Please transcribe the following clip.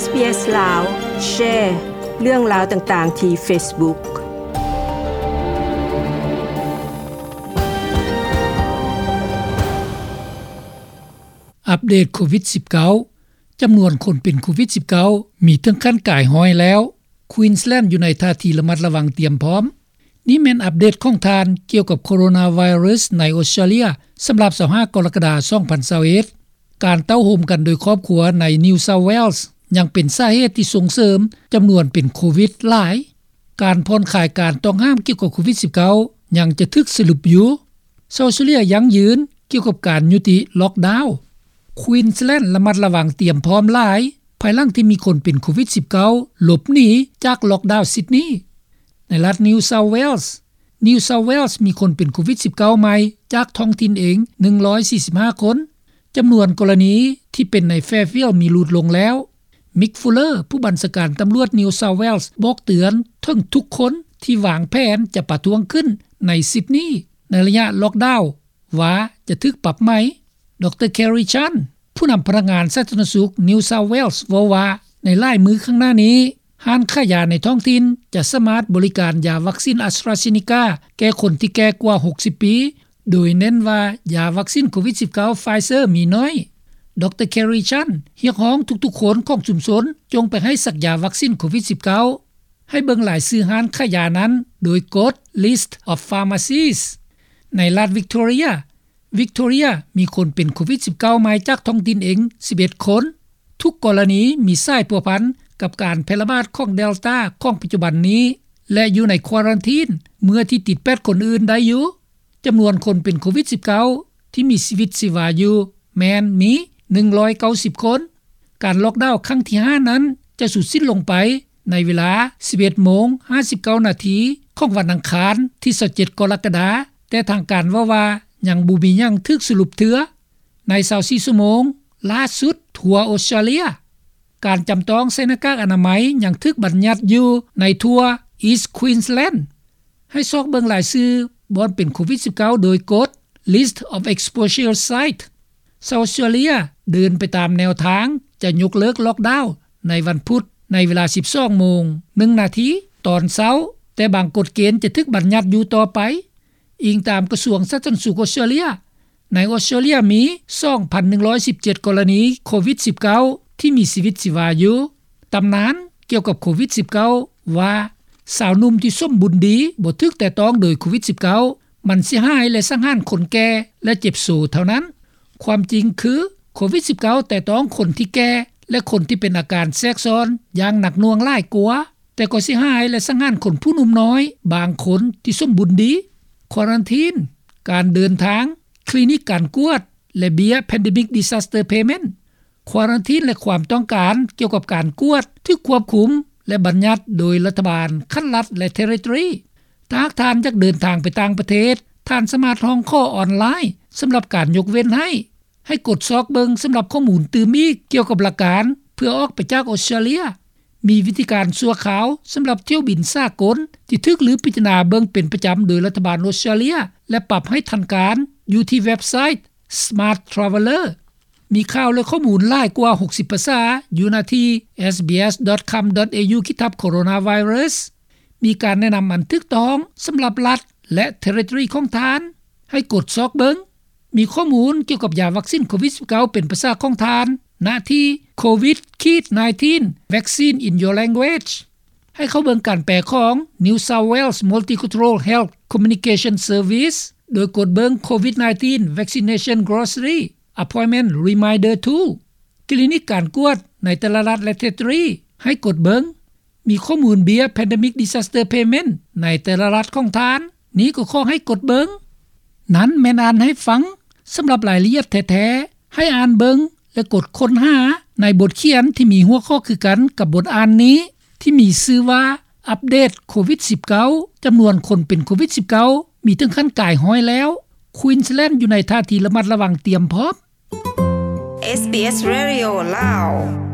SBS ລາວ ແຊເລື່ອງລາວຕ່າງໆທີ່ Facebook. ອັບເດດໂຄວິດສິບເກົ້າ ຈຳນວນຄົນເປັນໂຄວິດສິບເກົ້າ ມີເຖິງຂັ້ນກາຍຮ້ອຍແລ້ວ. ຄວີນສແລນ ຢູ່ໃນທ່າທີລະມັດລະວັງຕຽມພ້ອມ. ນີ້ແມ່ນອັບເດດຂອງທ່ານກ່ຽວກັບໂຄໂຣນາໄວຣັສໃນອົດສະຕຣາເລຍ ສຳລັບຊາວຫ້າກໍລະກະດາ ສອງພັນຊາວເອັດ. ການເຕົ້າໂຮມກັນໂດຍຄອບຄົວໃນ New South Wales ຍັງເປັນສາເຫດທີ່ສົ່ງເສີມຈຳນວນເປັນໂຄວິດຫຼາຍ. ການຜ່ອນຄາຍການຕ້ອງຫ້າມກ່ຽວກັບໂຄວິດສິບເກົ້າ ຍັງຈະຖືກສະຫຼຸບຢູ່. ຊາວອົດສະຕຣາເລຍຢັ້ງຢືນກ່ຽວກັບການຍຸຕິລັອກດາວ. ຄວີນສແລນ ລະມັດລະວັງຕຽມພ້ອມຫຼາຍ ພາຍຫຼັງທີ່ມີຄົນເປັນໂຄວິດສິບເກົ້າ ຫຼົບໜີຈາກລັອກດາວຊິດນີ. ໃນລັດ New South Wales New South Wales ມີຄົນເປັນໂຄວິດສິບເກົ້າໃໝ່ຈາກທ້ອງຖິ່ນເອງ ໜຶ່ງຮ້ອຍສີ່ສິບຫ້າຄົນ. ຈຳນວນກໍລະນີທີ່ເປັນໃນ Fairfield ມີຫຼຸດລົງແລ້ວ. Mick Fuller ຜູ້ບັນຊາການຕຳຫຼວດ New South Wales ບອກເຕືອນເຖິງທຸກຄົນທີ່ວາງແຜນຈະປະທ້ວງຂຶ້ນໃນຊິດນີໃນໄລຍະລັອກດາວ ວ່າຈະຖືກປັບໃໝ. ດຣ Kerry Chant ຜູ້ນຳພະນັກງານສາທາລະນະສຸກ New South Wales ເວົ້າວ່າ ໃນຫຼາຍມື້ຂ້າງໜ້ານີ້ ຮ້ານຂາຍຢາໃນທ້ອງຖິ່ນຈະສາມາດບໍລິການຢາວັກຊິນ AstraZeneca ແກ່ຄົນທີ່ແກ່ກວ່າຫົກສິບປີ ໂດຍເນັ້ນວ່າຢາວັກຊິນໂຄວິດສິບເກົ້າ Pfizer ມີໜ້ອຍ. ດຣ Kerry Chant ຮຽກຮ້ອງທຸກໆຄົນຂອງຊຸມຊົນ ຈົ່ງໄປໃຫ້ສັກຢາວັກຊິນໂຄວິດສິບເກົ້າ. ໃຫ້ເບິ່ງລາຍຊື່ຮ້ານຂາຍຢານັ້ນໂດຍກົດ List of Pharmacies. ໃນລັດ Victoria Victoria ມີຄົນເປັນໂຄວິດສິບເກົ້າໃໝ່ຈາກທ້ອງຖິ່ນເອງສິບເອັດຄົນ. ທຸກກໍລະນີມີສາຍພົວພັນກັບການແຜ່ລະບາດຂອງ Delta ຂອງປັດຈຸບັນນີ້ ແລະ ຢູ່ໃນຄວາຣັນທີນເມື່ອທີ່ຕິດແປດຄົນອື່ນໄດ້ຢູ່. ຈຳນວນຄົນເປັນໂຄວິດສິບເກົ້າທີ່ມີຊີວິດຊີວາຢູ່ແມ່ນມີໜຶ່ງຮ້ອຍເກົ້າສິບຄົນ. ການລັອກດາວຄັ້ງທີຫ້ານັ້ນຈະສຸດສິ້ນລົງໄປໃນເວລາສິບເອັດໂມງຫ້າສິບເກົ້ານາທີຂອງວັນອັງຄານທີຊາວເຈັດກໍລະກະດາ, ແຕ່ທາງການເວົ້າວ່າຍັງບໍ່ມີຫຍັງຖືກສະຫຼຸບເທື່ອໃນຊາວສີ່ຊົ່ວໂມງລ່າສຸດທົ່ວອົດສະຕຣາເລຍ. ການຈຳຕ້ອງໃສ່ໜ້າກາກອະນາໄມຍັງຖືກບັນຍັດຢູ່ໃນທົ່ວ East Queensland. ໃຫ້ຊອກເບິ່ງລາຍຊື່ບ່ອນເປັນໂຄວິດສິບເກົ້າໂດຍກົດ List of Exposure Site. ຊາວອົດສະຕຣາເລຍເດີນໄປຕາມແນວທາງຈະຍົກເລີກລັອກດາວໃນວັນພຸດໃນເວລາສິບສອງໂມງໜຶ່ງນາທີຕອນເຊົ້າ, ແຕ່ບາງກົດເກນຈະຖືກບັນຍັດຢູ່ຕໍ່ໄປ, ອີງຕາມກະຊວງສາທາລະນະສຸກອົດສະຕຣາເລຍ. ໃນອົດສະຕຣາເລຍມີສອງພັນໜຶ່ງຮ້ອຍສິບເຈັດກໍລະນີໂຄວິດສິບເກົ້າທີ່ມີຊີວິດຊີວາຢູ່. ຕຳນານກ່ຽວກັບໂຄວິດສິບເກົ້າວ່າ ຊາວໜຸ່ມທີ່ສົມບູນດີບໍ່ຖືກແຕະຕ້ອງໂດຍໂຄວິດສິບເກົ້າ ມັນຊິຮ້າຍ ແລະ ສັງຫານຄົນແກ່ ແລະ ເຈັບໂຊເທົ່ານັ້ນ. ຄວາມຈິງຄື ໂຄວິດສິບເກົ້າແຕະຕ້ອງຄົນທີ່ແກ່ ແລະ ຄົນທີ່ເປັນອາການແຊກຊ້ອນຢ່າງໜັກໜ່ວງຫຼາຍກວ່າ, ແຕ່ກໍຊິຮ້າຍ ແລະ ສັງຫານຄົນຜູ້ໜຸ່ມນ້ອຍບາງຄົນທີ່ສົມບູນດີ. ຄວາຣັນທີນ, ການເດີນທາງ, ຄລີນິກການກວດ ແລະ ເບ້ຍ Pandemic Disaster Payment. ຄວາຣັນທີນ ແລະ ຄວາມຕ້ອງການກ່ຽວກັບການກວດຖືກຄວບຄຸມ ແລະ ບັນຍັດໂດຍລັດຖະບານຂັ້ນລັດ ແລະ ເທຣິທຣີຣີ. ຖ້າຫາກທ່ານຢາກເດີນທາງໄປຕ່າງປະເທດ, ທ່ານສາມາດຮ້ອງຂໍອອນລາຍສຳລັບການຍົກເວັ້ນໃຫ້. ໃຫ້ກົດຊອກເບິ່ງສຳລັບຂໍ້ມູນຕື່ມອີກກ່ຽວກັບຫຼັກການເພື່ອອອກໄປຈາກອົດສະຕຣາເລຍ. ມີວິທີການຊົ່ວຄາວສຳລັບຖ້ຽວບິນສາກົນທີ່ຖືກລືພິຈາລະນາເບິ່ງເປັນປະຈຳໂດຍລັດຖະບານອົດສະຕຣາເລຍ ແລະ ປັບໃຫ້ທັນການຢູ່ທີ່ເວັບໄຊ Smart Traveller. ມີຂ່າວ ແລະ ຂໍ້ມູນຫຼາຍກວ່າຫົກສິບພາສາຢູ່ໜ້າທີ່ SBS.com.au ຂີດທັບ Coronavirus. ມີການແນະນຳອັນຖືກຕ້ອງສຳລັບລັດ ແລະ ເທຣິທຣີຣີຂອງທ່ານ. ໃຫ້ກົດຊອກເບິ່ງ. ມີຂໍ້ມູນກ່ຽວກັບຢາວັກຊິນໂຄວິດສິບເກົ້າເປັນພາສາຂອງທ່ານ ນະທີ່ COVID-nineteen Vaccine in Your Language. ໃຫ້ເຂົ້າເບິ່ງການແປຂອງ New South Wales Multicultural Health Communication Service ໂດຍກົດເບິ່ງ COVID-nineteen Vaccination Grocery Appointment Reminder Tool. ຄລີນິກການກວດໃນແຕ່ລະລັດ ແລະ ເທຣິທຣີຣີ ໃຫ້ກົດເບິ່ງ. ມີຂໍ້ມູນເບ້ຍ Pandemic Disaster Payment ໃນແຕ່ລະລັດຂອງທ່ານ. ນີ້ກໍຂໍໃຫ້ກົດເບິ່ງ. ນັ້ນແມ່ນອ່ານໃຫ້ຟັງ. ສຳລັບລາຍລະອຽດແທ້ໆ, ໃຫ້ອ່ານເບິ່ງ ແລະ ກົດຄົ້ນຫາໃນບົດຂຽນທີ່ມີຫົວຂໍ້ຄືກັນກັບບົດອ່ານນີ້ ທີ່ມີຊື່ວ່າ ອັບເດດໂຄວິດສິບເກົ້າ, ຈຳນວນຄົນເປັນໂຄວິດສິບເກົ້າ ມີເຖິງຂັ້ນກາຍຮ້ອຍແລ້ວ, ຄວີນສແລນ ຢູ່ໃນທ່າທີລະມັດລະວັງຕຽມພ້ອມ. SBS Radio ລາວ.